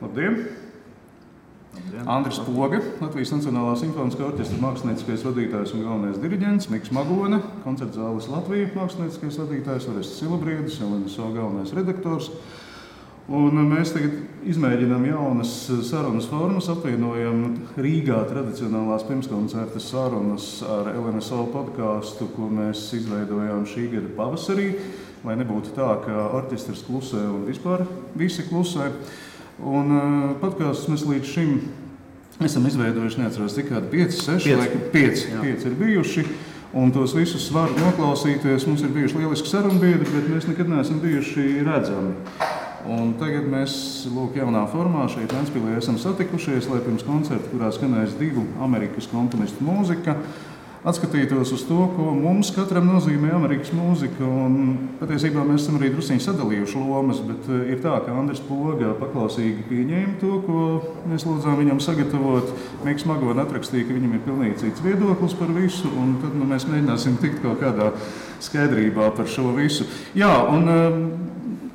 Labdien! Andris Poga, Latvijas Nacionālā simfoniskā orķestra mākslinieckais vadītājs un galvenais diriģents, Miks Magone, koncertzāles Latvija mākslinieckais vadītājs, Orests Silabriedis, LNSO galvenais redaktors. Un mēs tagad izmēģinām jaunas sarunas formas, apvienojam Rīgā tradicionālās pirmskoncerta sarunas ar LNSO podkāstu, ko mēs izveidojām šī gada pavasarī, lai nebūtu tā, ka orķestrs klusē un vispār visi klusē. Un podkāstus mēs līdz šim esam izveidojuši, neatceros, cik kādi 5, 6, 5 ir bijuši. Un tos visus var noklausīties. Mums ir bijuši lieliski sarunbiedri, bet mēs nekad neesam bijuši redzami. Un tagad mēs, jaunā formā šeit Ventspilī esam satikušies, lai pirms koncerta, kurā skanēs 2 Amerikas komponistu mūzika, atskatītos uz to, ko mums katram nozīmē Amerikas mūzika. Un patiesībā mēs esam arī drusciņi sadalījuši lomas, bet ir tā, ka Andris Poga paklausīgi pieņēma to, ko mēs lūdzām viņam sagatavot. Miks Magone atrakstīja, ka viņam ir pilnīgi cits viedoklis par visu, un tad mēs mēģināsim tikt kaut kādā skaidrībā par šo visu. Jā, un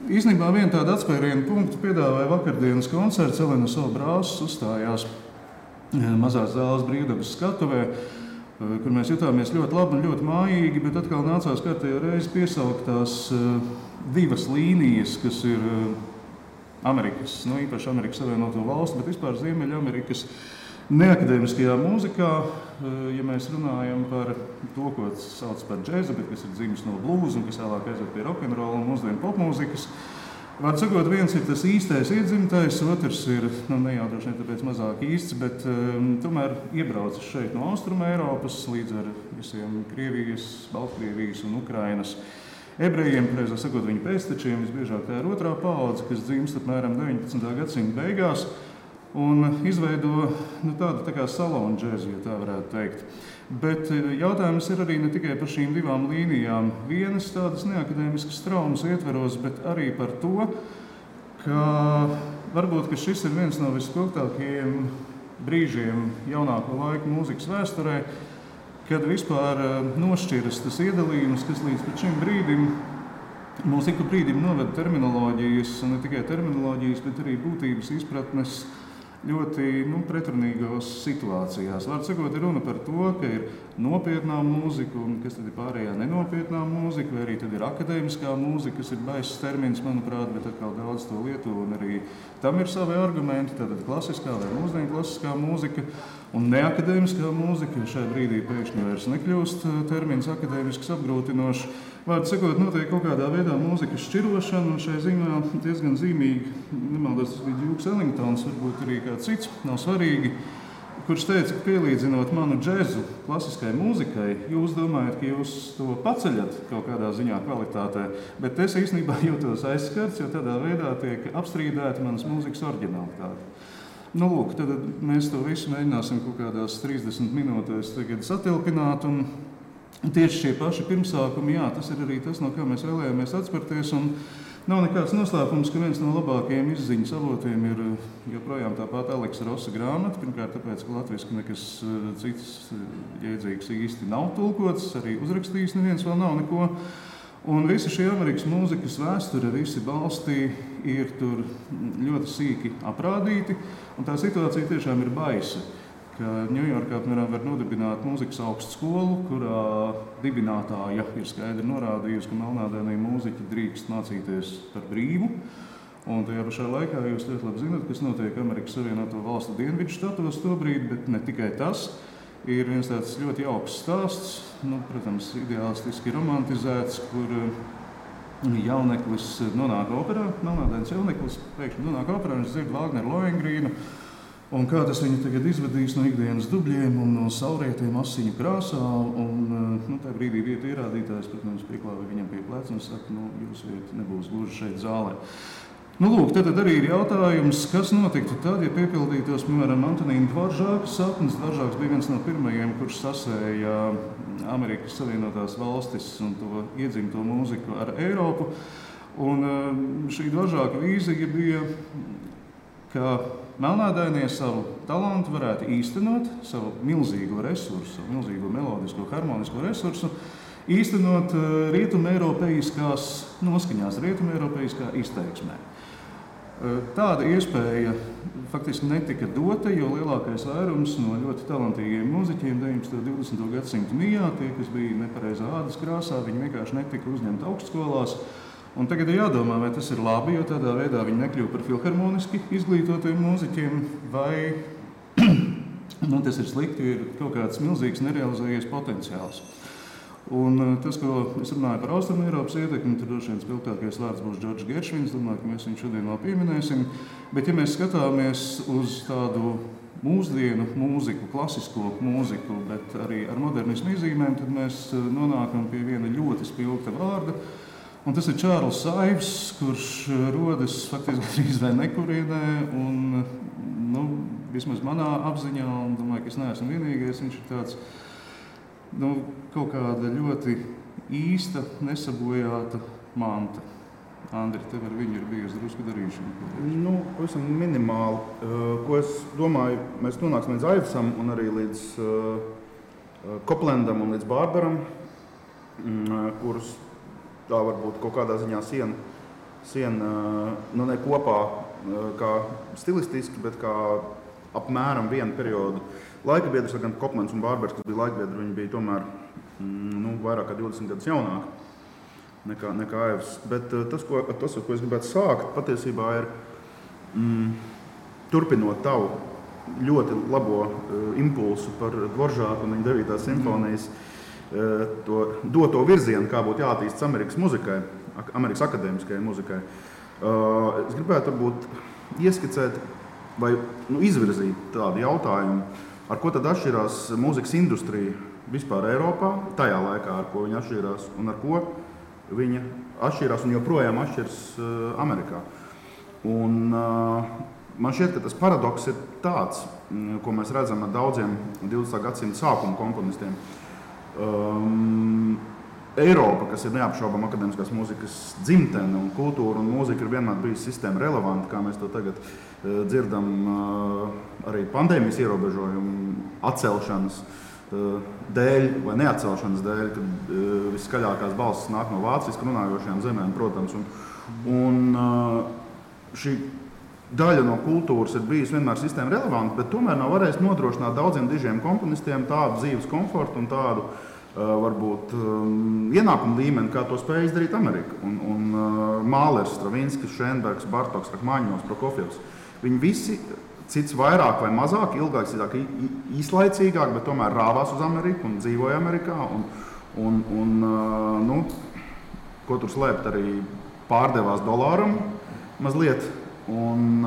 īstenībā vienu tādu atspērienu punktu piedāvāja vakardienas koncerts. LNSO brāzis uzstājās mazās zāles Brīvdabas skatuvē, kur mēs jutāmies ļoti labi un ļoti mājīgi, bet atkal nācās kārtējo reizi piesaukt tās 2 līnijas, kas ir Amerikas, īpaši Amerikas Savienoto Valstu, bet vispār Ziemeļamerikas neakadēmiskajā mūzikā, ja mēs runājam par to, ko sauc par džēzu, bet kas ir dzimis no blūza un kas vēlāk aiziet pie rokenrola un mūsdienu popmūzikas. Var sakot, viens ir tas īstais iedzimtais, otrs ir, ne jau droši vien tāpēc mazāk īsts, bet tomēr iebraucis šeit no Austruma Eiropas līdz ar visiem Krievijas, Baltkrievijas un Ukrainas ebrejiem, pareizāk sakot, viņu pēctečiem. Visbiežāk tā ir otrā paudze, kas dzimst apmēram 19. gadsimta beigās un izveido tādu tā kā salonu džēzu, ja tā varētu teikt. Bet jautājums ir arī ne tikai par šīm 2 līnijām, vienas tādas neakadēmiskas traumas ietveros, bet arī par to, ka varbūt ka šis ir viens no vispilgtākajiem brīžiem jaunāko laiku mūzikas vēsturē, kad vispār nošķiras tas iedalījums, kas līdz šim brīdim mūs ik pa brīdim noveda terminoloģijas, un ne tikai terminoloģijas, bet arī būtības izpratnes ļoti pretrunīgās situācijās. Var sakot, ir runa par to, ka ir nopietnā mūzika, un kas tad ir pārējā nenopietnā mūzika, vai arī tad ir akadēmiskā mūzika, kas ir baiss termins, manuprāt, bet atkal daudz to lieto, un arī tam ir savi argumenti, tātad klasiskā vai mūsdienu klasiskā mūzika, un neakadēmiskā mūzika, šai brīdī pēkšņi vairs nekļūst termins akadēmisks apgrūtinošs. Vārdu sakot, notiek kaut kādā veidā mūzikas šķirošana, un šai ziņā diezgan zīmīgi, nemaldos, tas bija Dukes Ellingtons, varbūt arī kāds cits, nav svarīgi, kurš teica, ka pielīdzinot manu džezu klasiskai mūzikai, jūs domājat, ka jūs to paceļat kaut kādā ziņā kvalitātē, bet es īstenībā jūtos aizskarts, jo tādā veidā tiek apstrīdēta manas mūzikas oriģinalitāte. Lūk, tad mēs to visu mēģināsim kaut kādās 30 minūtēs tagad satilpināt, un tieši šie paši pirmsākumi, jā, tas ir arī tas, no kā mēs vēlējāmies atspērties, un nav nekāds noslēpums, ka viens no labākajiem izziņas avotiem ir joprojām tāpat Aleksa Rosa grāmata. Pirmkārt, tāpēc, ka latviski nekas cits jēdzīgs īsti nav tulkots, arī uzrakstījis neviens vēl nav neko. Un visi šie Amerikas mūzikas vēsture, visi balsti ir tur ļoti sīki aprādīti, un tā situācija tiešām ir baisa. Ņujorkā var nodibināt mūzikas augstskolu, kurā dibinātāja ir skaidri norādījusi, ka melnādainie mūziķi drīkst mācīties par brīvu. Un tajā pašā laikā jūs ļoti labi zināt, kas notiek Amerikas Savienoto Valstu dienvidu štatos tobrīd, bet ne tikai tas. Ir viens tāds ļoti jauks stāsts, protams, ideālistiski romantizēts, kur jauneklis nonāk operā, melnādains jauneklis pēkšņi nonāk operā, viņš dzird Vāgneru Lohengrīnu. Un kā tas viņu tagad izvadīs no ikdienas dubļiem un no saulrietiem asiņu krāsā. Un tā brīdī vietu ierādītājs, protams, pieklāja viņam pie pleca un saka, jūsu vieta nebūs gluži šeit zālē. Lūk, tad arī ir jautājums, kas notiktu tad, ja piepildītos, piemēram, Antonīna Dvoržāka sapnis. Dvoržāks bija viens no pirmajiem, kurš sasēja Amerikas Savienotās Valstis un to iedzimto mūziku ar Eiropu. Un šī Dvoržāka vīzija bija, ka melnādainie savu talantu varētu īstenot, savu milzīgo resursu, savu milzīgo melodisko, harmonisko resursu, īstenot rietumeiropeiskās noskaņās, rietumeiropeiskā izteiksmē. Tāda iespēja faktiski netika dota, jo lielākais vairums no ļoti talantīgiem mūziķiem 19. un 20. gadsimta mijā, tie, kas bija nepareizā ādas krāsā, viņi vienkārši netika uzņemti augstskolās. Un tagad ir jādomā, vai tas ir labi, jo tādā veidā viņi nekļuva par filharmoniski izglītotiem mūziķiem, vai tas ir slikti, jo ir kaut kāds milzīgs nerealizējies potenciāls. Un tas, ko es runāju par Austrumēropas ietekmi, tur droši vien spilgtākais vārds būs Džordžs Geršvins, domāju, ka mēs viņu šodien vēl pieminēsim. Bet ja mēs skatāmies uz tādu mūsdienu mūziku, klasisko mūziku, bet arī ar modernismu iezīmēm, tad mēs nonākam pie viena ļoti spilgta vārda. Un tas ir Čārls Saivs, kurš rodas faktiski gandrīz vai nekurienē, un vismaz manā apziņā, un domāju, ka es neesmu vienīgais, viņš ir tāds kaut kāda ļoti īsta, nesabojāta manta. Andri, tev ar viņu ir bijusi drusku darīšana? Pavisam minimāli. Ko es domāju, mēs nonāksim līdz Aivsam un arī līdz Koplendam un līdz Bārbaram, kurus tā varbūt kaut kādā ziņā siena ne kopā kā stilistiski, bet kā apmēram vienu periodu laika biedrs, gan Koplends un Bārbers, kas bija laikbiedri, viņi bija tomēr vairāk kā 20 gadus jaunāki nekā Aivs. Bet tas, ar ko es gribētu sākt, patiesībā ir turpinot tavu ļoti labo impulsu par Dvoržāku un viņa 9. simfonijas to doto virzienu, kā būtu jāattīstas Amerikas muzikai, Amerikas akadēmiskajai muzikai. Es gribētu varbūt ieskicēt vai izvirzīt tādu jautājumu, ar ko tad atšķirās mūzikas industrija vispār Eiropā, tajā laikā, ar ko viņa atšķirās un ar ko viņa atšķirās un joprojām atšķiras Amerikā. Un man šķiet, ka tas paradoks ir tāds, ko mēs redzam ar daudziem 20. gadsimta sākuma komponistiem. Eiropa, kas ir neapšaubām akadēmiskās mūzikas dzimtene un kultūra un mūzika ir vienmēr bijusi sistēma relevanta, kā mēs to tagad dzirdam arī pandēmijas ierobežojumu atcelšanas dēļ vai neatcelšanas dēļ, kad viskaļākās balsis nāk no vāciski runājošajām zemēm, protams. Un šī daļa no kultūras ir bijusi vienmēr sistēma relevanta, bet tomēr nav varējis nodrošināt daudziem dižiem komponistiem tādu dzīves komfortu un tādu varbūt ienākumu līmeni, kā to spēja izdarīt Amerika. Un Mālers, Stravinskis, Šenbergs, Bartoks, Rachmaņinovs, Prokofjevs. Viņi visi cits vairāk vai mazāk, ilgāk, īslaicīgāk, bet tomēr rāvās uz Ameriku un dzīvoja Amerikā. Ko tur slēpt, arī pārdevās dolāram mazliet. Un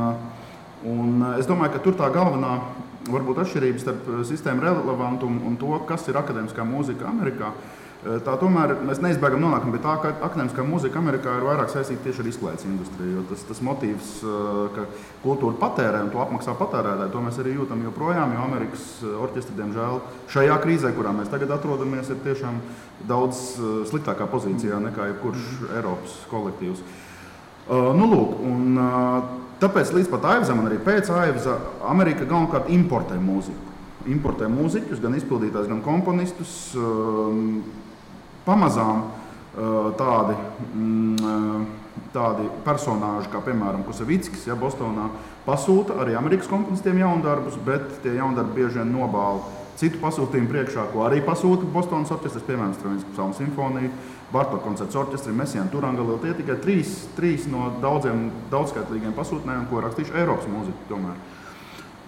es domāju, ka tur tā galvenā varbūt atšķirības starp sistēmu relevantumu un to, kas ir akadēmiskā mūzika Amerikā. Tā tomēr mēs neizbēgam nonākam pie tā, ka akadēmiskā mūzika Amerikā ir vairāk saistīta tieši ar izklaides industriju, jo tas motīvs, ka kultūra patērē un to apmaksā patērētāji, to mēs arī jūtam joprojām, jo Amerikas orķestri, diemžēl, šajā krīzē, kurā mēs tagad atrodamies, ir tiešām daudz sliktākā pozīcijā nekā jebkurš Eiropas kolektīvs. Tāpēc līdz pat Aivzam un arī pēc Aivza Amerika galvenokārt importē mūziku. Importē mūziķus, gan izpildītājus, gan komponistus. Pamazām tādi personāži, kā piemēram Kusavickis, Bostonā, pasūta arī Amerikas komponistiem jaundarbus, bet tie jaundarbi bieži vien nobāla citu pasūtījumu priekšā, ko arī pasūta Bostonas orķestris, piemēram, Stravinskis Psalmu simfoniju, Bartoka koncerts orķestri, Messiāna Turangalila. Tie tikai trīs no daudzskaitlīgiem pasūtnējiem, ko rakstījuši Eiropas mūziku tomēr.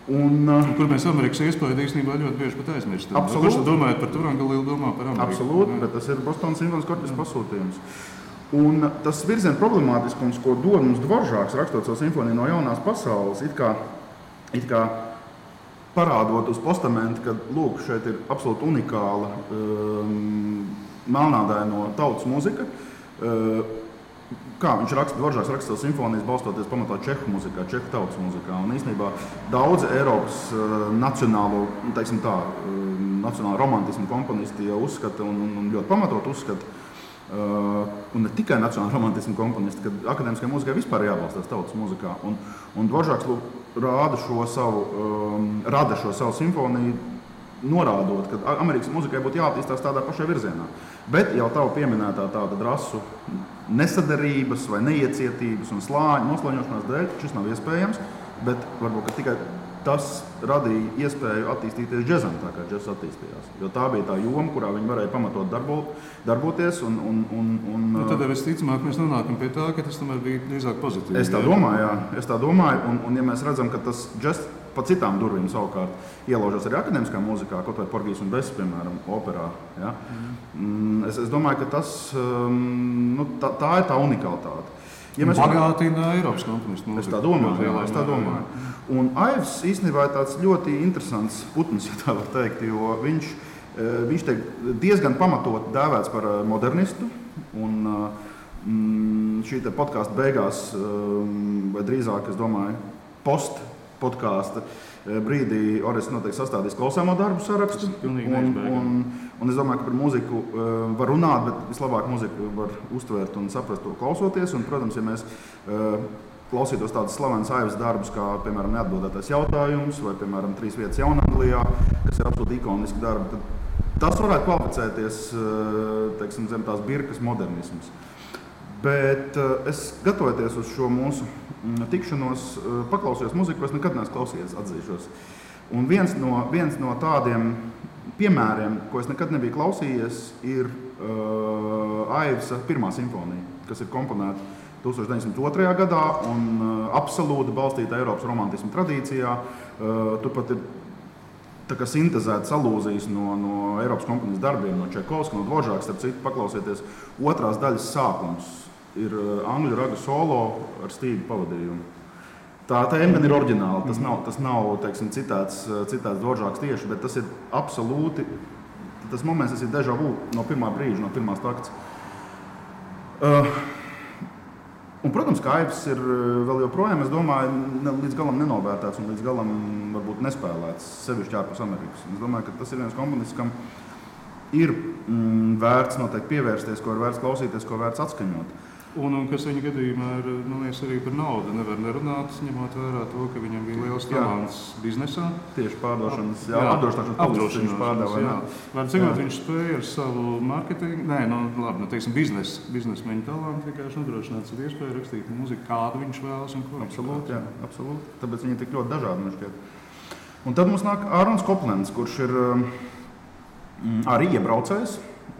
Kur mēs Amerikas iespēju īstenībā ļoti bieži pat aizmirstam. Absolūti. Kurš domājat par Turangalilu, domā par Ameriku? Absolūti, bet tas ir Bostonas simfoniskā orķestra pasūtījums. Un tas virziena problemātiskums, ko dod mums Dvoržāks, rakstot savu simfoniju no jaunās pasaules, it kā parādot uz postamenta, ka lūk, šeit ir absolūti unikāla melnādaino tautas mūzika. Kā viņš raksta, Dvoržāks raksta savu simfonijas balstoties pamatā čehu mūzikā, čehu tautas mūzikā. Un īstenībā daudzi Eiropas nacionālo romantismu komponisti jau uzskata un ļoti pamatot uzskata, un ne tikai nacionāla romantismu komponisti, ka akadēmiskai mūzikai vispār jābalstās tautas mūzikā. Un Dvoržāks rada šo savu simfoniju norādot, ka Amerikas muzikai būtu jāattīstās tādā pašā virzienā. Bet jau tava pieminētā tāda rasu nesadarības vai neiecietības un noslāņošanās dēļ šis nav iespējams, bet varbūt tikai tas radīja iespēju attīstīties džezam, tā kā džezs attīstījās. Jo tā bija tā joma, kurā viņi varēja pamatot darboties. Tad visticamāk mēs nonākam pie tā, ka tas tomēr bija drīzāk pozitīvi. Es tā domāju, un ja mēs redzam, ka tas džezs pa citām durvīm savukārt ielaužas arī akadēmiskā mūzikā, kaut vai Porgijs un Bess, piemēram, operā. Ja? Es domāju, ka tas, tā ir tā unikalitāte. Ja bagātina Eiropas komponistu mūziku. Es tā domāju. Un Aivs īstenībā ir tāds ļoti interesants putns, ja tā var teikt, jo viņš tiek diezgan pamatot dēvēts par modernistu. Un šī te podkāsta beigās, vai drīzāk, es domāju, podkāsta brīdī Orests noteikti sastādīs klausāmo darbu sarakstu. Un es domāju, ka par mūziku var runāt, bet vislabāk mūziku var uztvērt un saprast to klausoties. Un, protams, ja mēs klausītos tādas slavenas Aivas darbus, kā, piemēram, Neatbildētais jautājums vai, piemēram, 3 vietas Jaunanglijā, kas ir absolūti ikoniski darbi, tad tas varētu kvalificēties, teiksim, zem tās birkas modernisms. Bet es gatavoties uz šo mūsu tikšanos, paklausījos muziku, ko es nekad neesmu klausījies, atzīšos. Un viens no tādiem piemēriem, ko es nekad nebiju klausījies, ir Aivsa pirmā simfonija, kas ir komponēta 1902. gadā un absolūti balstīta Eiropas romantismu tradīcijā. Turpat ir tā kā sintezētas alūzijas no Eiropas komponistu darbiem, no Čaikovska, no Dvoržāka, starp citu, paklausieties, otrās daļas sākums ir angļu raga solo ar stīgu pavadījumu. Tā tēma gan ir oriģināla, tas nav teiksim, citāts Dvoržāks tieši, bet tas ir absolūti, tas moments, tas ir déjà vu no pirmā brīža, no pirmās takts. Un, protams, ka Aivs ir vēl joprojām, es domāju, līdz galam nenovērtēts un līdz galam varbūt nespēlēts, sevišķi ārpus Amerikas. Es domāju, ka tas ir viens komponists, kam ir vērts noteikti pievērsties, ko ir vērts klausīties, ko vērts atskaņot. Un kas viņa gadījumā ir, man liekas, arī par naudu nevar nerunāt, ņemot vērā to, ka viņam bija liels talants biznesā. Tieši pārdošanas, apdrošināšanas viņš pārdeva. Vai cik viņš spēja ar savu marketingu, teiksim, biznesmeņu talantu vienkārši nodrošināt savu iespēju rakstīt mūziku, kādu viņš vēlas un ko viņš vēlas. Absolūti. Tāpēc viņi ir tik ļoti dažādi, man šķiet. Un tad mums nāk Ārons Koplends, kurš ir arī iebraucējs.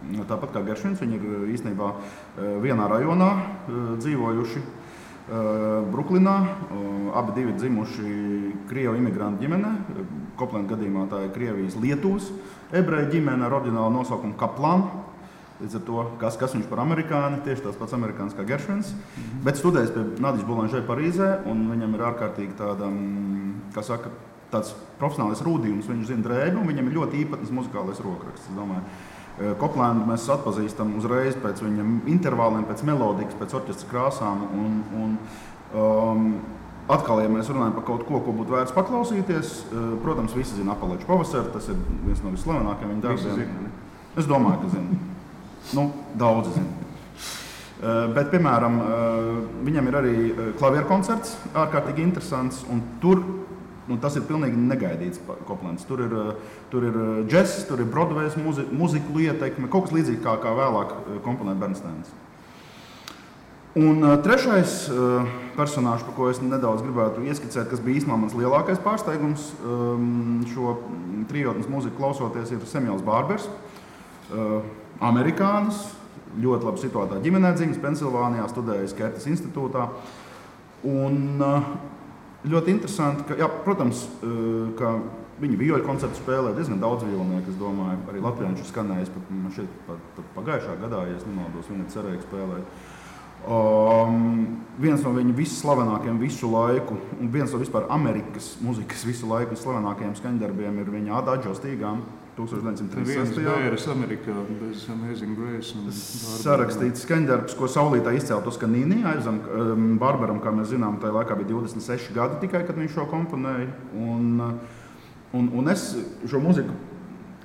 Tāpat kā Geršvins, viņi ir īstenībā vienā rajonā dzīvojuši Bruklinā. Abi divi dzimuši Krievu imigrantu ģimene. Koplenda gadījumā tā ir Krievijas Lietuvas ebreju ģimene ar oriģinālu nosaukumu Kaplan. Līdz ar to, kas viņš par amerikāni, tieši tās pats amerikāns kā Geršvins. Bet studējis pie Nadiša Boulanger Parīzē, un viņam ir ārkārtīgi tāda, kā saka, tāds profesionālais rūdījums. Viņš zina drēbi, un viņam ir ļoti īpatnes muzikālais rokraksts, es domāju. Koplendu mēs atpazīstam uzreiz pēc viņa intervāliem, pēc melodikas, pēc orķestra krāsām. Atkal, ja mēs runājam par kaut ko būtu vērts paklausīties, protams, visi zina Apaleču pavasaru, tas ir viens no vislavenākajiem viņa darbiem. Es domāju, ka zina. Daudzi zina. Bet, piemēram, viņam ir arī klavieru koncerts, ārkārtīgi interesants, un tur tas ir pilnīgi negaidīts Koplends. Tur ir džess, tur ir Broadways muziku ietekme, kaut kas līdzīgi kā vēlāk komponēt Bernsteins. Un trešais personāžs, par ko es nedaudz gribētu ieskicēt, kas bija īstenībā mans lielākais pārsteigums šo trijotnes muziku klausoties, ir Samuels Barbers, amerikānis, ļoti labi situētā ģimenē dzimis Pensilvānijā, studējis Kertas institūtā. Un ļoti interesanti, ka, protams, ka viņi vioļu koncertu spēlē diezgan daudz violnieku, es domāju, arī Latvijā viņš ir skanējis pat pagājušā gadā, ja es nemaldos, viņa cerēja spēlēt. Viens no viņa visslavenākajiem visu laiku, un viens no vispār Amerikas muzikas visu laiku slavenākajiem skaņdarbiem ir viņa Adagio stīgām 1936. Viens Amerikā bez Amazing Grace. Sarakstīts skaņdarbs, ko saulītā izcēla Toskanīni. Aizam Barberam, kā mēs zinām, tajā laikā bija 26 gadi tikai, kad viņš šo komponēja. Un es šo muziku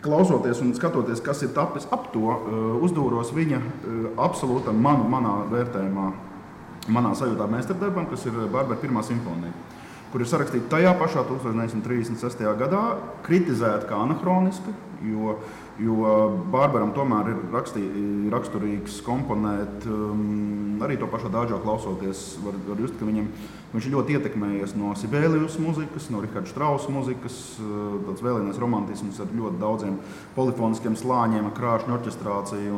klausoties un skatoties, kas ir tapis ap to, uzdūros viņa absolūtam manā vērtējumā, manā sajūtā meistardarbam, kas ir Barbera pirmā simfonija. kur ir sarakstīta tajā pašā 1936. gadā, kritizēta kā anahroniska, jo Barbaram tomēr ir raksturīgs komponēt, arī to pašu Adagio klausoties, var just, ka viņš ir ļoti ietekmējies no Sibelius muzikas, no Richarda Strausa muzikas, tāds vēlēnais romantisms ar ļoti daudziem polifoniskiem slāņiem, ar krāšņu orķestrāciju.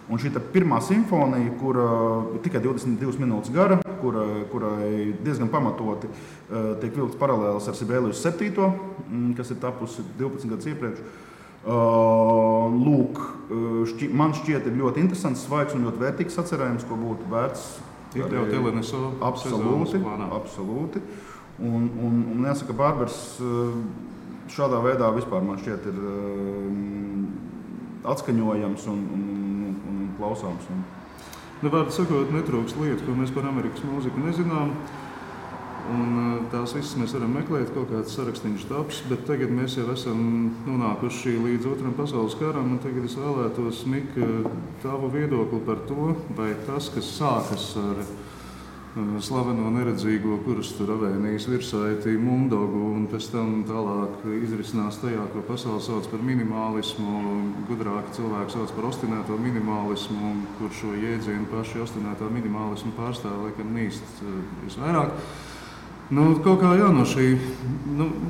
Un šī pirmā simfonija, kura ir tikai 22 minūtes gara, kurai diezgan pamatoti tiek vilkts paralēlis ar Sibelius 7, kas ir tapusi 12 gadus iepriekš. Lūk, man šķiet ir ļoti interesants, svaigs un ļoti vērtīgs sacerējums, ko būtu vērts iekļaut LNSO absolūti. Un jāsaka, Barbers šādā veidā vispār man šķiet ir atskaņojams un klausāms. Vārdu sakot, netrūkst lietu, ko mēs par Amerikas mūziku nezinām. Un tās visas mēs varam meklēt, kaut kāds sarakstiņš taps, bet tagad mēs jau esam nonākuši līdz Otram pasaules karam, un tagad es vēlētos, Mika, tavu viedokli par to, vai tas, kas sākas ar slaveno neredzīgo, kurus tur avēnijas virsaiti Mundogu, un pēc tam tālāk izrisinās tajā, ko pasaule sauc par minimālismu, gudrāki cilvēki sauc par ostinēto minimālismu, kur šo jēdzienu paši ostinētā minimālismu pārstāv, laikam nīst visvairāk. Kaut kā no šī,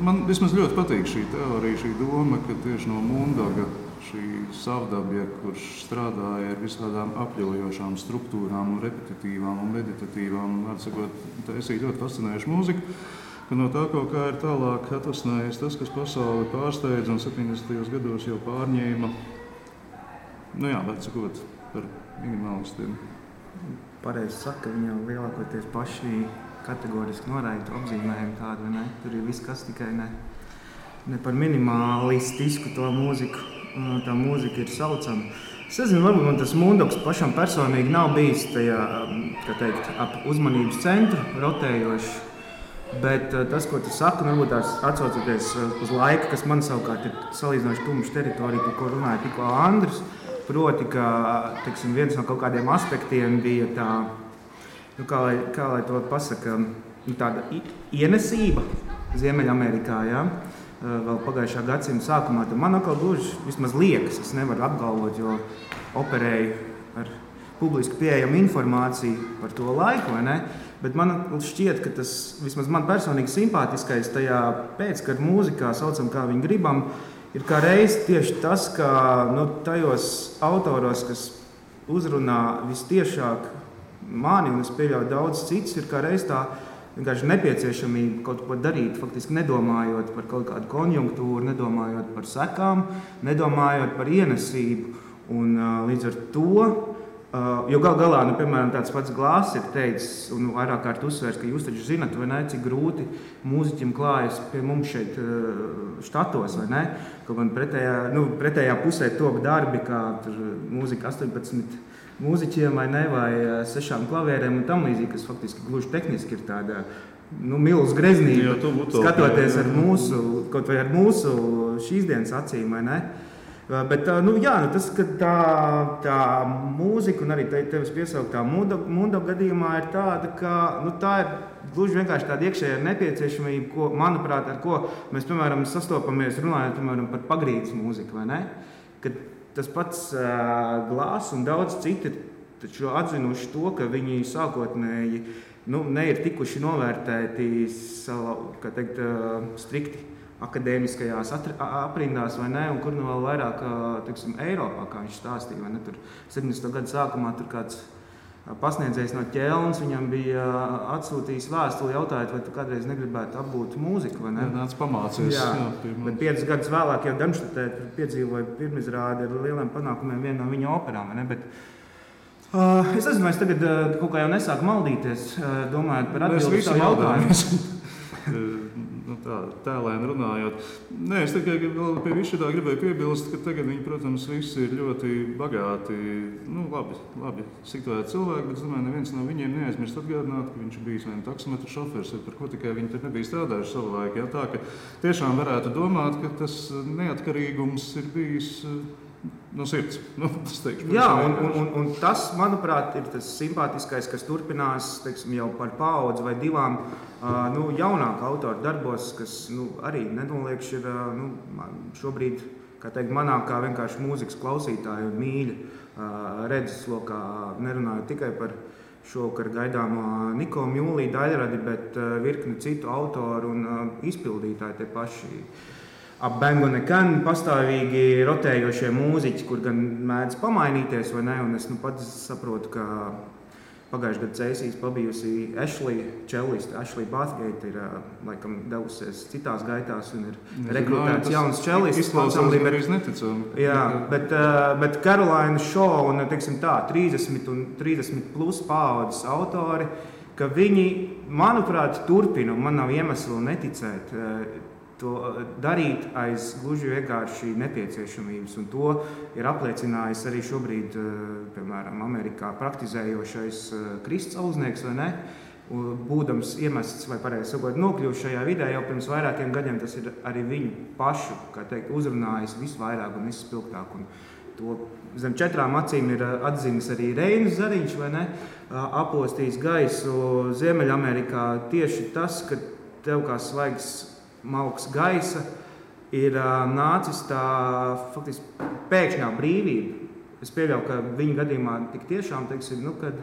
man vismaz ļoti patīk šī teorija, šī doma, ka tieši no Mundoga šī savdabja, kurš strādāja ar visādām apļaujošām struktūrām un repetitīvām un meditatīvām, un var sakot, taisīt ļoti fascinējušu mūziku, ka no tā kaut kā ir tālāk atvasinājies tas, kas pasauli pārsteidz un 70. gados jau pārņēma, var sakot, par minimālistiem. Pareizi saka, viņi jau lielākoties paši kategoriski noraida apzīmējumu tādu, vai ne? Tur ir viss, kas tikai ne par minimalistisku to mūziku, tā mūzika ir saucama. Es nezinu, varbūt man tas Mundogs pašam personīgi nav bijis tajā, ap uzmanības centru rotējoši, bet tas, ko tu saki, varbūt tās atsaucoties uz laiku, kas man savukārt ir salīdzinoši tumša teritorija, par ko runāja tikko Andris, proti, ka, viens no kaut kādiem aspektiem bija tā, kā lai to pasaka, tāda ienesība Ziemeļamerikā, vēl pagājušā gadsimta sākumā. Man atkal gluži vismaz liekas, es nevaru apgalvot, jo operēju ar publiski pieejamu informāciju par to laiku, vai ne? Bet man šķiet, ka tas vismaz man personīgi simpātiskais tajā pēckara mūzikā, saucam kā viņu gribam, ir kā reiz tieši tas, ka tajos autoros, kas uzrunā vistiešāk mani, un es pieļauju daudz cits, ir kā reiz tā vienkārši nepieciešamība kaut ko darīt, faktiski nedomājot par kaut kādu konjunktūru, nedomājot par sekām, nedomājot par ienesību. Un līdz ar to, jo galā, piemēram, tāds pats Glāss ir teicis, un vairāk kārt uzsvērs, ka jūs taču zinat, vai ne, cik grūti mūziķim klājas pie mums šeit štatos, vai ne? Kaut gan pretējā pusē top darbi, kā tur mūzika 18 mūziķiem vai 6 klavierēm un tam līdzīgi, kas faktiski gluži tehniski ir tāda milz greznība, skatoties ar mūsu šīs dienas acīm, vai ne? Bet, tas, ka tā mūzika un arī tevis piesauktā Mundo gadījumā ir tāda, ka tā ir gluži vienkārši tāda iekšējā nepieciešamība, ko, manuprāt, ar ko mēs, piemēram, sastopamies runājot, piemēram, par pagrīdes mūziku, vai ne? Kad tas pats Glāss un daudz citi taču atzinuši to, ka viņi sākotnēji ne ir tikuši novērtēti strikti akadēmiskajās aprindās, vai ne, un kur vēl vairāk, Eiropā, kā viņš stāstīja, vai ne, tur 70. gadu sākumā tur kāds pasniedzējs no Ķelnas, viņam bija atsūtījis vēstuli jautājot, vai tu kādreiz negribētu apgūt mūziku, vai ne? Nāc pamācies. Jā, bet 5 gadus vēlāk jau Darmštatē piedzīvoja pirmizrādi ar lieliem panākumiem viena no viņa operām, vai ne? Bet, es nezinu, vai es tagad kaut kā jau nesāku maldīties, domājot par atbildi savu jautājumu. Tēlēni runājot. Nē, es tikai vēl pie visu tā gribēju piebilst, ka tagad viņi, protams, visi ir ļoti bagāti, labi situēti cilvēki, bet, domāju, neviens no viņiem neaizmirst atgādināt, ka viņš ir bijis vai taksometru šofers, vai par ko tikai viņi tur nebija strādājuši savu laiku. Tā, ka tiešām varētu domāt, ka tas neatkarīgums ir bijis no sirds. Tas teikšu, jā, un tas, manuprāt, ir tas simpātiskais, kas turpinās, teiksim, jau par paudzi vai divām jaunāku autoru darbos, kas arī nenoliekš ir šobrīd, kā teikt, manā kā vienkārši mūzikas klausītāju un mīļa redzeslokā, nerunāju tikai par šovakar gaidāmo Niko Mjūlī daļradi, bet virkni citu autoru un izpildītāji tie paši. Ap Bang on a Can pastāvīgi rotējošie mūziķi, kur gan mēdz pamainīties vai ne, un es pats saprotu, ka pagājušajā gadā Cēsīs pabijusi Ashley Bathgate ir laikam devusies citās gaitās un ir rekrutēts jauns čellists. Izklausās arī neticami. Jā, bet Caroline Shaw un, teiksim tā, 30 un 30 plus paaudzes autori, ka viņi, manuprāt, turpina, un man nav iemeslu neticēt, to darīt aiz gluži vienkārši nepieciešamības. Un to ir apliecinājis arī šobrīd, piemēram, Amerikā praktizējošais Krists Auznieks, vai ne? Būdams iemests vai pareizi sakot nokļuvis šajā vidē jau pirms vairākiem gadiem, tas ir arī viņu pašu, kā teikt, uzrunājis visvairāk un vispilgtāk. Un to zem 4 acīm ir atzinis arī Reinis Zariņš, vai ne? Apostījis gaisu Ziemeļamerikā tieši tas, ka tev kā svaigs malks gaisa ir nācis tā faktiski pēkšņā brīvība. Es pieļauju, ka viņa gadījumā tik tiešām, teiksim, kad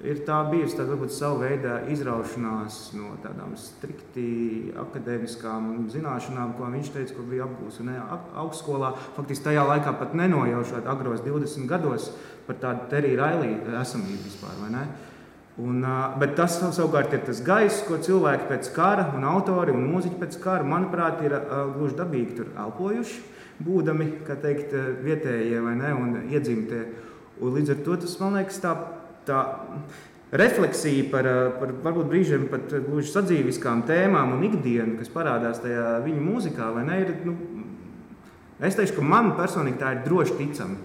ir tā bijusi tā varbūt savu veidā izraušanās no tādām strikti akadēmiskām zināšanām, ko viņš teica, ko bija apgūs augstskolā. Faktiski tajā laikā pat nenojaušot agros 20 gados par tādu Terry Riley esamību vispār, vai ne? Bet tas savukārt ir tas gaiss, ko cilvēki pēc kara un autori un mūziķi pēc kara, manuprāt, ir gluži dabīgi tur elpojuši, būdami, kā teikt, vietējie vai ne, un iedzimtie. Un līdz ar to tas, man liekas, tā refleksija par varbūt brīžiem pat gluži sadzīviskām tēmām un ikdienu, kas parādās tajā viņu mūzikā, vai ne, ir, es teikšu, ka man personīgi tā ir droši ticama.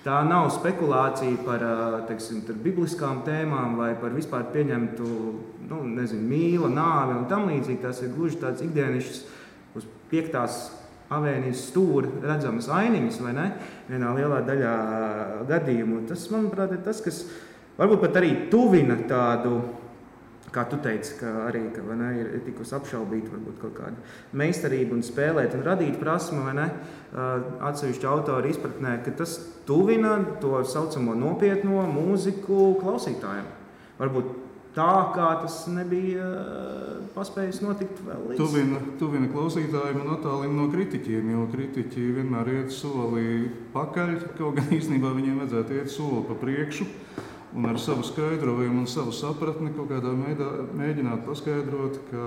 Tā nav spekulācija par, teiksim, bibliskām tēmām vai par vispār pieņemtu, mīla, nāvi un tam līdzīgi. Tas ir gluži tāds ikdienišķs uz 5. avēnijas stūra redzamas ainiņas, vai ne? Vienā lielā daļā gadījumu. Tas, manuprāt, ir tas, kas varbūt pat arī tuvina tādu, kā tu teici, ka arī ir tikus apšaubīt varbūt kaut kādu meistarību un spēlēt un radīt prasmu, vai ne, atsevišķu autoru izpratnē, ka tas tuvina to saucamo nopietno mūziku klausītājiem. Varbūt tā, kā tas nebija paspējis notikt vēl līdz. Tuvina klausītājiem un attālina no kritiķiem, jo kritiķi vienmēr iet soli pakaļ, kaut gan īstenībā viņiem vajadzētu iet soli pa priekšu. Un ar savu skaidrojumu un savu sapratni kaut kādā veidā mēģināt paskaidrot, ka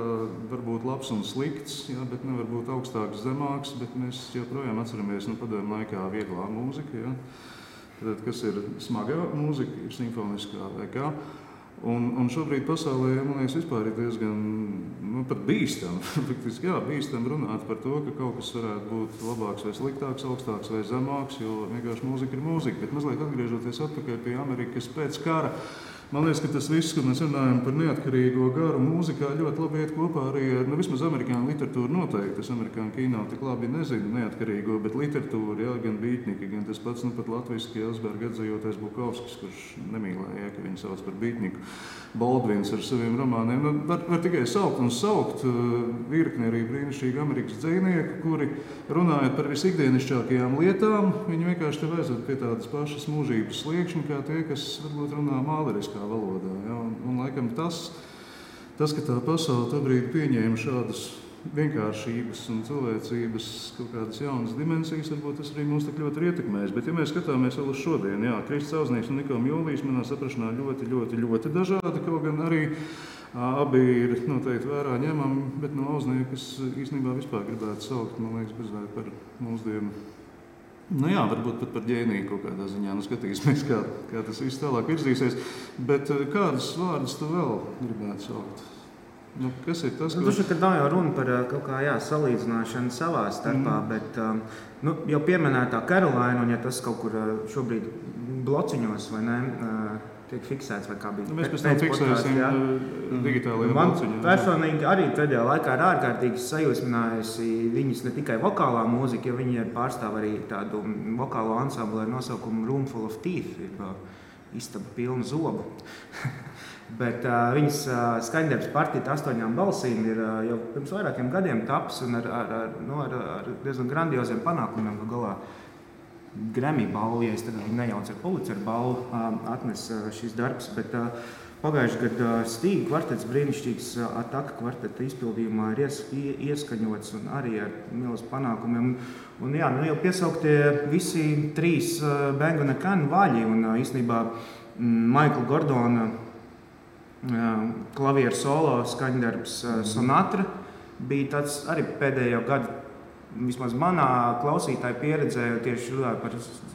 var būt labs un slikts, jā, bet nevar būt augstāks, zemāks, bet mēs joprojām atceramies padomju laikā vieglā mūzika, jā. Tad, kas ir smagā mūzika, ir simfoniskā vai kā. Un šobrīd pasaulē, man liekas, vispār ir diezgan pat bīstam, faktiski, jā, bīstam runāt par to, ka kaut kas varētu būt labāks vai sliktāks, augstāks vai zemāks, jo vienkārši mūzika ir mūzika. Bet mazliet atgriežoties atpakaļ pie Amerikas pēc kara, man liekas, ka tas viss, kad mēs runājam par neatkarīgo garu mūzikā, ļoti labi iet kopā arī ar, vismaz amerikāņu literatūru noteikti. Es amerikāņu kino tik labi nezinu neatkarīgo, bet literatūru, jā, gan Bītņika, gan tas pats, pat latviski Elsberga atzījotais Bukovskis, kurš nemīlēja, ka viņu sauc par Bītņiku. Baldvins ar saviem romāniem. Var tikai saukt un saukt virkni arī brīnišķīgi Amerikas dzejnieku, kuri runājot par visikdienišķākajām lietām, viņi vienkārši tev aizved pie tādas pašas mūžības sliekšņa, kā tie, kas varbūt runā māleriskā valodā. Ja? Un laikam tas, ka tā pasaule tobrīd pieņēma šādas vienkāršības un cilvēcības kaut kādas jaunas dimensijas, varbūt tas arī mūs tik ļoti ir ietekmējis. Bet ja mēs skatāmies vēl uz šodien, jā, Krists Auznieks un Niko Mjūlijs manā saprašanā ļoti dažādi, kaut gan arī abi ir noteikti vērā ņemami, bet no Auzniekas īstenībā vispār gribētu saukt, man liekas, bezvērt par mūsdienu. Jā, varbūt pat par ģēniju kaut kādā ziņā, skatīsimies, kā tas viss tālāk virzīsies. Bet kādus vārdus tu vēl gribētu saukt? Kas ir tas, ko... Kad nav jau runa par kaut kā salīdzināšanu savā starpā, bet jau pieminētā Caroline, un ja tas kaut kur šobrīd blociņos vai ne, tiek fiksēts, vai kā bija. Mēs pēc tam fiksēsim digitālajā lauciņā. Man personīgi arī pēdējā laikā ir ārkārtīgi sajūsminājusi viņas ne tikai vokālā mūzika, jo viņi pārstāv arī tādu vokālo ansamblu ar nosaukumu Room Full of Teeth, istaba pilna zobu. Bet viņas skaņdarbs Partita 8 balsīm ir jau pirms vairākiem gadiem taps un ar diezgan grandioziem panākumiem galā. Grammy balvu, ja es tagad nejaucu ar Pulitzer balvu, atnes šis darbs, bet pagājuši gadu Stīga kvartets, brīnišķīgs Ataka kvarteta izpildījumā ir ieskaņots un arī ar milzu panākumiem. Un jā, jau piesauktie visi 3 Bang & Can vaļi un īstenībā Michaela Gordona klavieru solo skaņdarbs Sonatra bija tāds arī pēdējo gadu. Vismaz manā klausītāja pieredzē tieši runāju par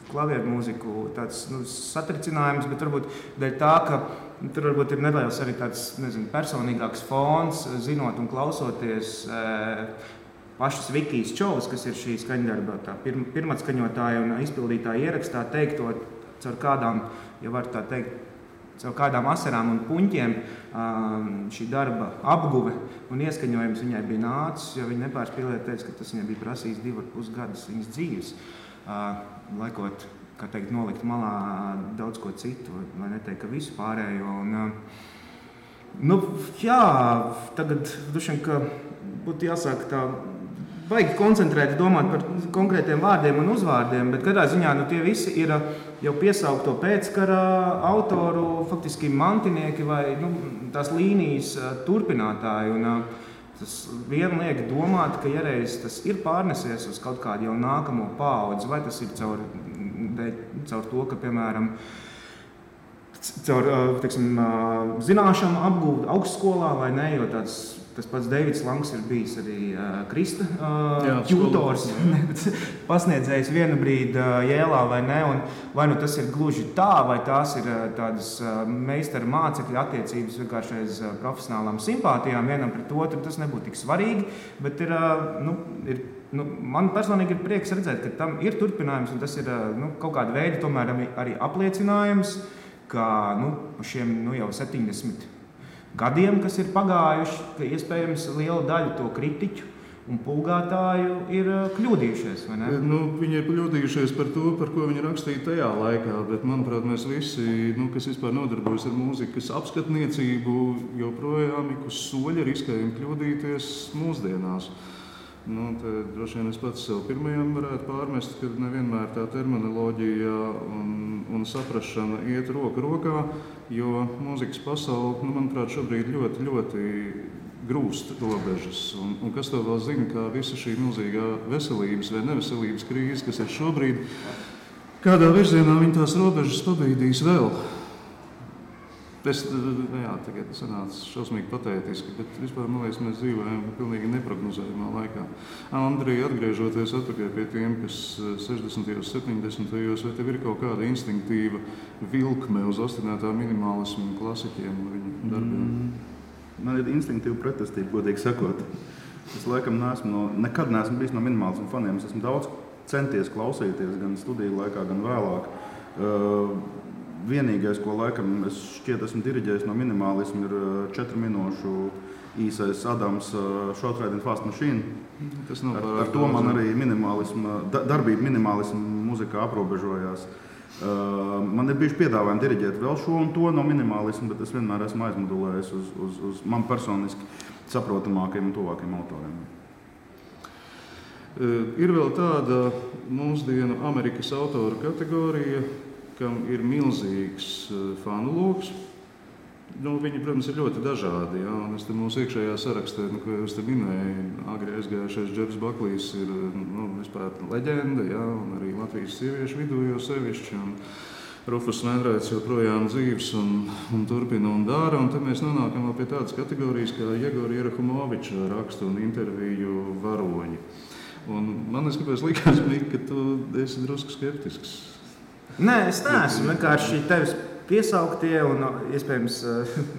klavieru mūziku tāds satricinājums, bet varbūt dēļ tā, ka tur varbūt ir nedaudz arī tāds, personīgāks fons, zinot un klausoties pašas Vikijas Čovas, kas ir šī skaņdarba, tā pirmatskaņotāja un izpildītāja ierakstā teikto caur kādām, ja var tā teikt, caur kādām asarām un puņķiem šī darba apguve un ieskaņojums viņai bija nācis, jo viņa nepārspīlēja teica, ka tas viņai bija prasījis 2,5 gadus viņas dzīves, laikot, kā teikt, nolikt malā daudz ko citu, vai neteikt, ka visu pārējo. Un, jā, tagad dušiem, ka būtu jāsāk tā baigi koncentrēti domāt par konkrētiem vārdiem un uzvārdiem, bet katrā ziņā tie visi ir jau piesaukto pēckara autoru, faktiski mantinieki vai tās līnijas turpinātāji. Un, tas vien liek domāt, ka ja reiz tas ir pārnesies uz kaut kādu jau nākamo paudzi, vai tas ir caur to, ka, piemēram, caur zināšanu apgūt augstskolā vai ne, jo tas pats Deivids Langs ir bijis arī Krista ķūtors, pasniedzējis vienu brīdi Jēlā vai ne, un vai tas ir gluži tā, vai tās ir tādas meistara mācekļu attiecības vienkārši aiz profesionālām simpātijām vienam pret otru, tas nebūtu tik svarīgi, bet man personīgi ir prieks redzēt, ka tam ir turpinājums, un tas ir kaut kāda veida tomēr arī apliecinājums, ka šiem jau 70 gadiem, kas ir pagājuši, ka iespējams liela daļa to kritiķu un pulgātāju ir kļūdījušies, vai ne? Viņi ir kļūdījušies par to, par ko viņi rakstīja tajā laikā, bet, manuprāt, mēs visi, kas vispār nodarbojas ar mūzikas apskatniecību, joprojām ik uz soļa riskējam kļūdīties mūsdienās. Te droši vien es pats sev pirmajam varētu pārmest, ka nevienmēr tā terminoloģija un saprašana iet roku rokā, jo mūzikas pasaule, manuprāt, šobrīd ļoti, ļoti grūst robežas. Un kas to vēl zina, kā visa šī milzīgā veselības vai neveselības krīze, kas ir šobrīd, kādā virzienā viņi tās robežas pabīdīs vēl. Tagad sanāca šausmīgi patētiski, bet vispār, man liekas, mēs dzīvojam pilnīgi neprognozējumā laikā. Andrij, atgriežoties atpakaļ pie tiem, kas 60. 70. vai tev ir kaut kāda instinktīva vilkme uz ostinētā minimālismu klasiķiem un viņu darbiem? Man ir instinktīva pretestība, godīgi sakot. Es laikam nekad neesmu bijis no minimālismu faniem. Es esmu daudz centies klausīties gan studiju laikā, gan vēlāk. Vienīgais, ko laikam es šķiet esmu diriģējis no minimālismu, ir 4 minūšu īsais Adams Short Ride and Fast Machine. Ar to man arī darbība minimālismu muzikā aprobežojās. Man ir bijuši piedāvājumi diriģēt vēl šo un to no minimālismu, bet es vienmēr esmu aizmodulējis uz man personiski saprotamākajiem un tuvākajiem autoriem. Ir vēl tāda mūsdienu Amerikas autoru kategorija, kam ir milzīgs fanu loks. Viņi, protams, ir ļoti dažādi. Ja? Un es te mūsu iekšējā sarakstā, ko jūs te minēju, agri aizgājušais Džefs Baklijs ir vispār leģenda, ja? Un arī Latvijas sieviešu vidū jau sevišķi. Un Rufus Venraits joprojām dzīves un turpina un dara. Un tad mēs nonākam pie tādas kategorijas kā Jegora Jerahumoviča rakstu un interviju varoņi. Un man kāpēc likās, ka tu esi drusku skeptisks. Nē, es neesmu. Vienkārši tevis piesauktie un iespējams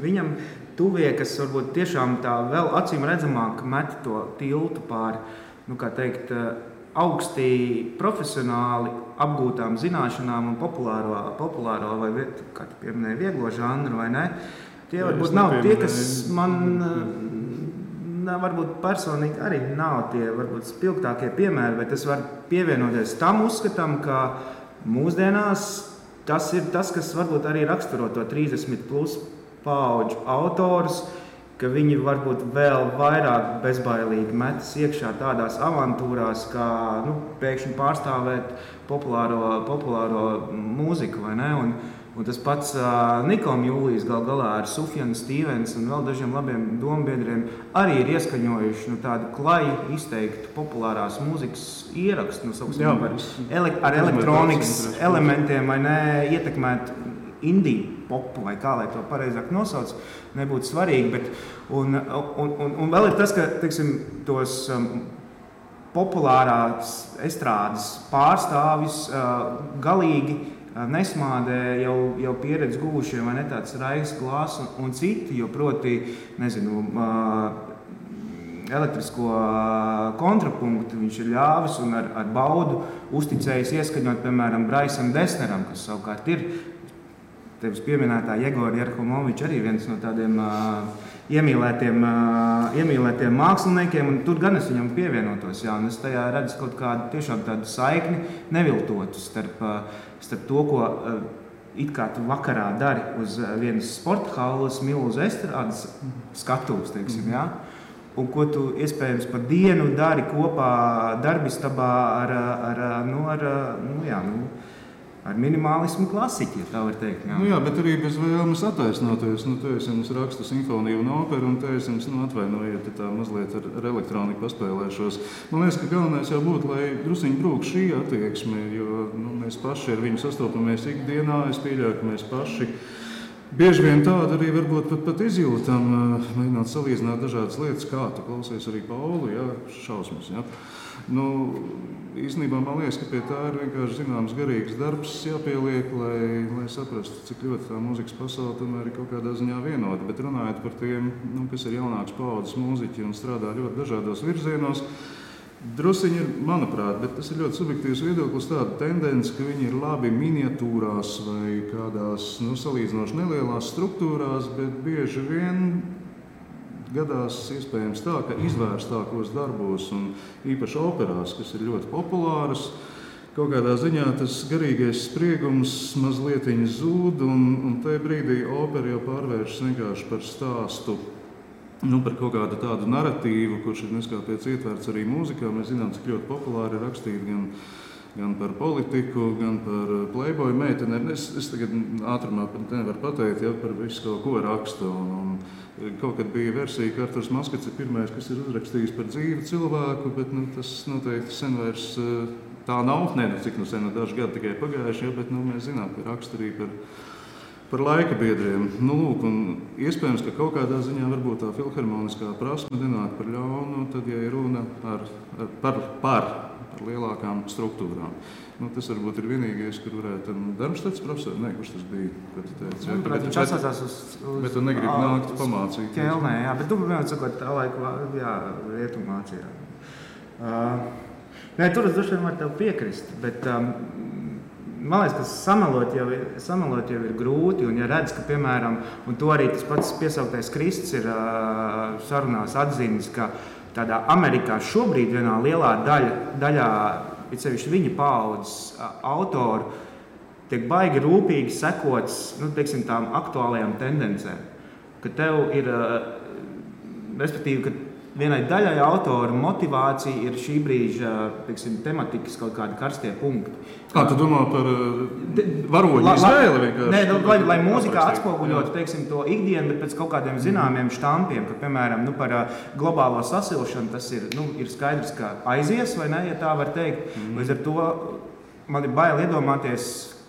viņam tuvie, kas varbūt tiešām tā vēl acīm redzamāk met to tiltu pāri, augsti profesionāli apgūtām zināšanām un populāro vai, kā tu pieminēji, vieglo žanru, vai ne? Tie varbūt nav tie, kas man varbūt personīgi arī nav tie varbūt spilgtākie piemēri, bet es varu pievienoties tam uzskatam, ka mūsdienās tas ir tas, kas varbūt arī raksturo to 30 plus paudžu autorus, ka viņi varbūt vēl vairāk bezbailīgi metas iekšā tādās avantūrās, kā pēkšņi pārstāvēt populāro mūziku, vai ne? Un tas pats Nikom Jūlijs galā ar Sufjanu Stīvens un vēl dažiem labiem dombiedriem arī ir ieskaņojuši tādu klaju izteiktu populārās mūzikas ierakstu, ar elektronikas elementiem, vai ne, ietekmēt indiju popu, vai kā, lai to pareizāk nosauc, nebūtu svarīgi, bet un vēl ir tas, ka, teiksim, tos populārās estrādes pārstāvis galīgi nesmādē jau pieredzi guvušie, vai ne, tāds Raigs Glāss un citi, jo proti, nezinu, elektrisko kontrapunktu viņš ir ļāvis un ar baudu uzticējis ieskaņot, piemēram, Braisam Desneram, kas savukārt ir tevis pieminētā Jegora Jerhomoviča arī viens no tādiem iemīlētiem māksliniekiem, un tur gan es viņam pievienotos, jā, un es tajā redzu kaut kādu tiešām tādu saikni neviltotu starp to, ko it kā tu vakarā dari uz vienas sporta halles milzu estrādes skatuves, teiksim, jā, un ko tu iespējams pa dienu dari kopā darbistabā ar minimālismu klasiķi, ja tā var teikt. Jā. Jā, bet arī bez vēlmes attaisnoties. Te es jums rakstu simfoniju un operu, un te es jums atvainojiet, tā mazliet ar elektroniku paspēlēšos. Man liekas, ka galvenais jau būtu, lai drusiņi brūk šī attieksme, jo mēs paši ar viņu sastopamies ikdienā. Es pieļauju, ka mēs paši bieži vien tādu arī varbūt pat izjūtam, mēģināt salīdzināt dažādas lietas, kā tu klausies arī Paulu, jā, šausmas, jā. Īstenībā man liekas, ka pie tā ir vienkārši zināms garīgs darbs jāpieliek, lai saprastu, cik ļoti tā mūzikas pasaule tomēr ir kaut kādā ziņā vienota. Bet runājot par tiem, kas ir jaunāks paudzes mūziķi un strādā ļoti dažādos virzienos, drusiņi ir, manuprāt, bet tas ir ļoti subjektīvs viedoklis, tāda tendence, ka viņi ir labi miniatūrās vai kādās salīdzinoši nelielās struktūrās, bet bieži vien gadās iespējams tā, ka izvērstākos darbos un īpaši operās, kas ir ļoti populāras, kaut kādā ziņā tas garīgais spriegums mazlietiņ zūd, un tajā brīdī opera jau pārvēršas vienkārši par stāstu, par kaut kādu tādu narratīvu, kurš ir neskāpēc ietverts arī mūzikā. Mēs zinām, cik ļoti populāri ir rakstīt gan par politiku, gan par playboy meiteni. Es tagad ātrumā nevaru pateikt, ja par visu kaut ko rakstu. Un kaut kad bija versija, ka Arturs Maskats ir pirmais, kas ir uzrakstījis par dzīvu cilvēku, bet tas noteikti sen vairs tā nav. Cik sen, daži gadi tikai pagājuši, bet mēs zinām, ka raksta arī par laika biedriem. Un iespējams, ka kaut kādā ziņā varbūt tā filharmoniskā prasme nenāk par ļaunu, tad, ja ir runa par lielākām struktūrām. Tas varbūt ir vienīgais, kur varētu Darmstads profesori, kurš tas bija, ko tu teici. Viņš atsācās uz bet tu negribi nākt pamācīt. Ķelnē, jā, bet tu vienmēr sakot tā laika, jā, rietumācijā. Tur es droši vien varu tev piekrist, bet man liekas, ka samelot jau ir grūti, un ja redz, ka, piemēram, un to arī tas pats piesauktais Krists ir sarunās atzīmis, ka tādā Amerikā šobrīd vienā lielā daļā, it sevišķi viņa paaudzes autoru, tiek baigi rūpīgi sekots, teiksim, tām aktuālajām tendencēm. Ka tev ir, respektīvi, ka vienai daļai autoru motivācija ir šī brīža, teiksim, tematikas kaut kādi karstie punkti. Kā tu domā par varoņu izvēli vienkārši? Lai mūzikā atspoguļotu, teiksim, to ikdienu, bet pēc kaut kādiem zināmiem štampiem, ka, piemēram, par globālo sasilšanu tas ir skaidrs, ka aizies, vai ne, ja tā var teikt. Līdz ar to man ir bail iedomāties,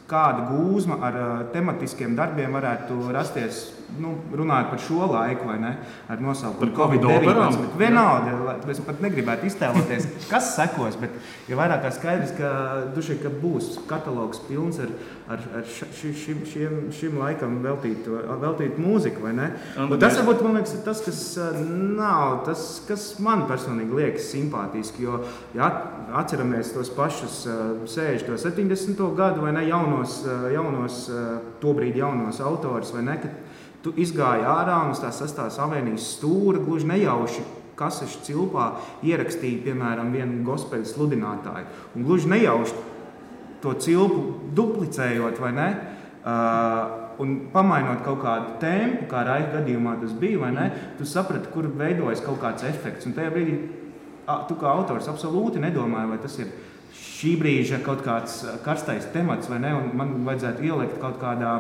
kāda gūzma ar tematiskiem darbiem varētu rasties runājot par šo laiku, vai ne, ar nosaukumu Covid-19. Vienalga, es pat negribētu iztēloties, kas sekos, bet ja vairāk kā skaidrs, ka būs katalogs pilns ar šim laikam veltīt mūziku, vai ne? Un tas varbūt, man liekas, ir tas, kas nav, tas, kas man personīgi liekas simpātiski, jo, ja atceramies tos pašus 60. 70. gadu, vai ne, jaunos tobrīd jaunos autors, vai ne, kad tu izgāji ārā un uz tās 6. avēnijas stūra gluži nejauši kasešu cilpā ierakstīja, piemēram, vienu gospeļu sludinātāju. Un gluži nejauši to cilpu duplicējot, vai ne, un pamainot kaut kādu tempu, kā Raika gadījumā tas bija, vai ne, tu saprati, kur veidojas kaut kāds efekts. Un tajā brīdī tu kā autors absolūti nedomāji, vai tas ir šī brīža kaut kāds karstais temats, vai ne, un man vajadzētu ielikt kaut kādā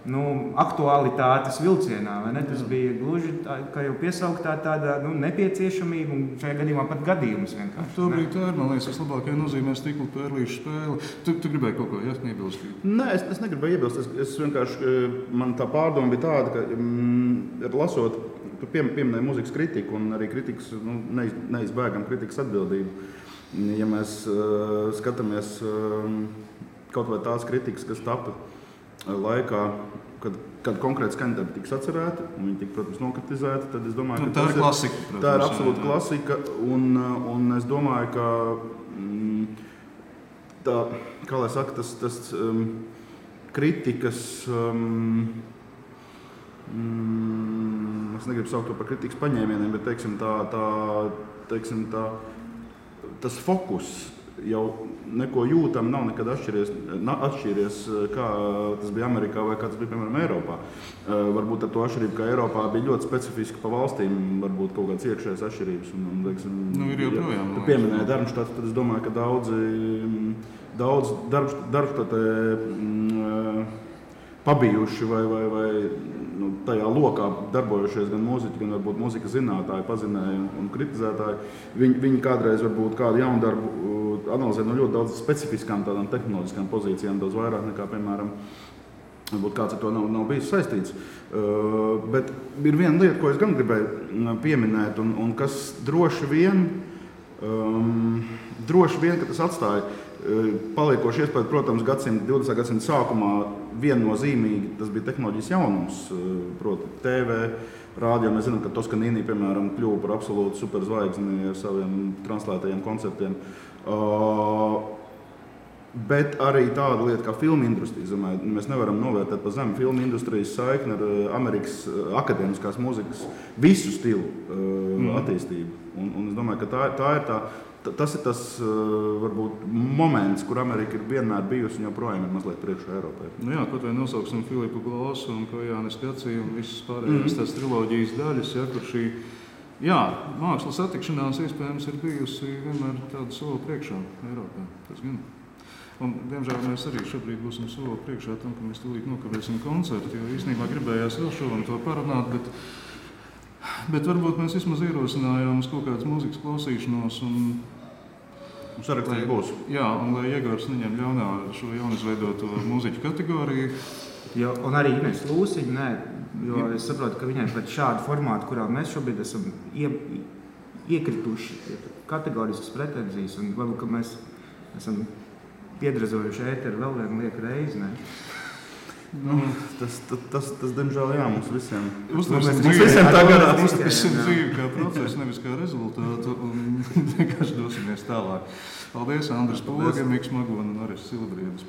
aktualitātes vilcienā, vai ne? Tas bija gluži, kā jau piesauktā, tāda nepieciešamība un šajā gadījumā pat gadījums vienkārši. Tobrīd tā ir, man liekas, vislabākajā nozīmē stikla pērlīšu spēle. Tu gribēji kaut ko iebilst? Nē, es negribēju iebilst. Es vienkārši, man tā pārdoma bija tāda, ka lasot, tu pieminēji mūzikas kritiku un arī kritikas, neizbēgam kritikas atbildību. Ja mēs skatāmies kaut vai tās kritikas, kas tapa laikā, kad konkrēti skaņdarbi tiks atcerēti, un viņi tika, protams, nokritizēti, tad es domāju, ka tā ir klasika. Protams, tā ir absolūta klasika, un es domāju, ka tā, kā lai saka, tas kritikas, es negribu saukt to par kritikas paņēmieniem, bet teiksim tā, tas fokus jau neko jūtam, nav nekad atšķīries, kā tas bija Amerikā vai kā tas bija, piemēram, Eiropā. Varbūt ar to atšķirību, ka Eiropā bija ļoti specifiski pa valstīm, varbūt kaut kāds iekšējais atšķirības. Ir joprojām. Tu pieminēji Darmštatu, tad es domāju, ka daudz Darmštatē pabijuši vai tajā lokā darbojušies gan mūziķi, gan varbūt mūzikas zinātāji, pazinēji un kritizētāji. Viņi kādreiz varbūt kādu jaunu darbu analizē no ļoti daudz specifiskām tādām tehnoloģiskām pozīcijām, daudz vairāk nekā, piemēram, varbūt kāds ar to nav bijis saistīts. Bet ir viena lieta, ko es gan gribēju pieminēt, un kas droši vien, ka tas atstāja paliekoši iespēju, protams, 20. gadsimta sākumā viennozīmīgi tas bija tehnoloģijas jaunums, proti TV, rādio. Mēs zinām, ka Toskanīni, piemēram, kļuva par absolūtu superzvaigzni ar saviem translētajiem koncertiem. Bet arī tāda lieta kā filmu industrija. Mēs nevaram novērtēt pa zemu filmu industrijas saikni ar Amerikas akadēmiskās mūzikas visu stilu attīstību. Un es domāju, ka tas ir tas varbūt moments, kur Amerika ir vienmēr bijusi un joprojām ir mazliet priekšā Eiropai. Jā, kaut vai nosauksim Filipu Glāsu un Kojānis Kacī un visas pārējās tās triloģijas daļas, kur šī mākslas attikšanās iespējams ir bijusi vienmēr tāda soli priekšā Eiropā. Tas gan. Un, diemžēl mēs arī šobrīd būsim soli priekšā tam, ka mēs tūlīt nokavēsim koncertu, jo īstenībā gribējās vēl šodien to parunāt, bet varbūt mēs vismaz ierosinājām uz kaut kādas mūzikas klausīšanos un sarakstīt būs. Jā, un lai Iegors neņem ļaunā šo jaunizveidoto mūziķu kategoriju. Jo, un arī Ines Lūsiņa, jo es saprotu, ka viņai pēc šādu formātu, kurā mēs šobrīd esam iekrituši kategoriskas pretenzijas, un varbūt, ka mēs esam piedrazojuši ēteru vēl vienu lieku reizi, ne? Tas diemžēl, mums visiem. Uztversim dzīvi kā procesu, nevis kā rezultātu, un vienkārši dosimies tālāk. Paldies, Andris Poga, Miks Magona un Aris Silabriedis.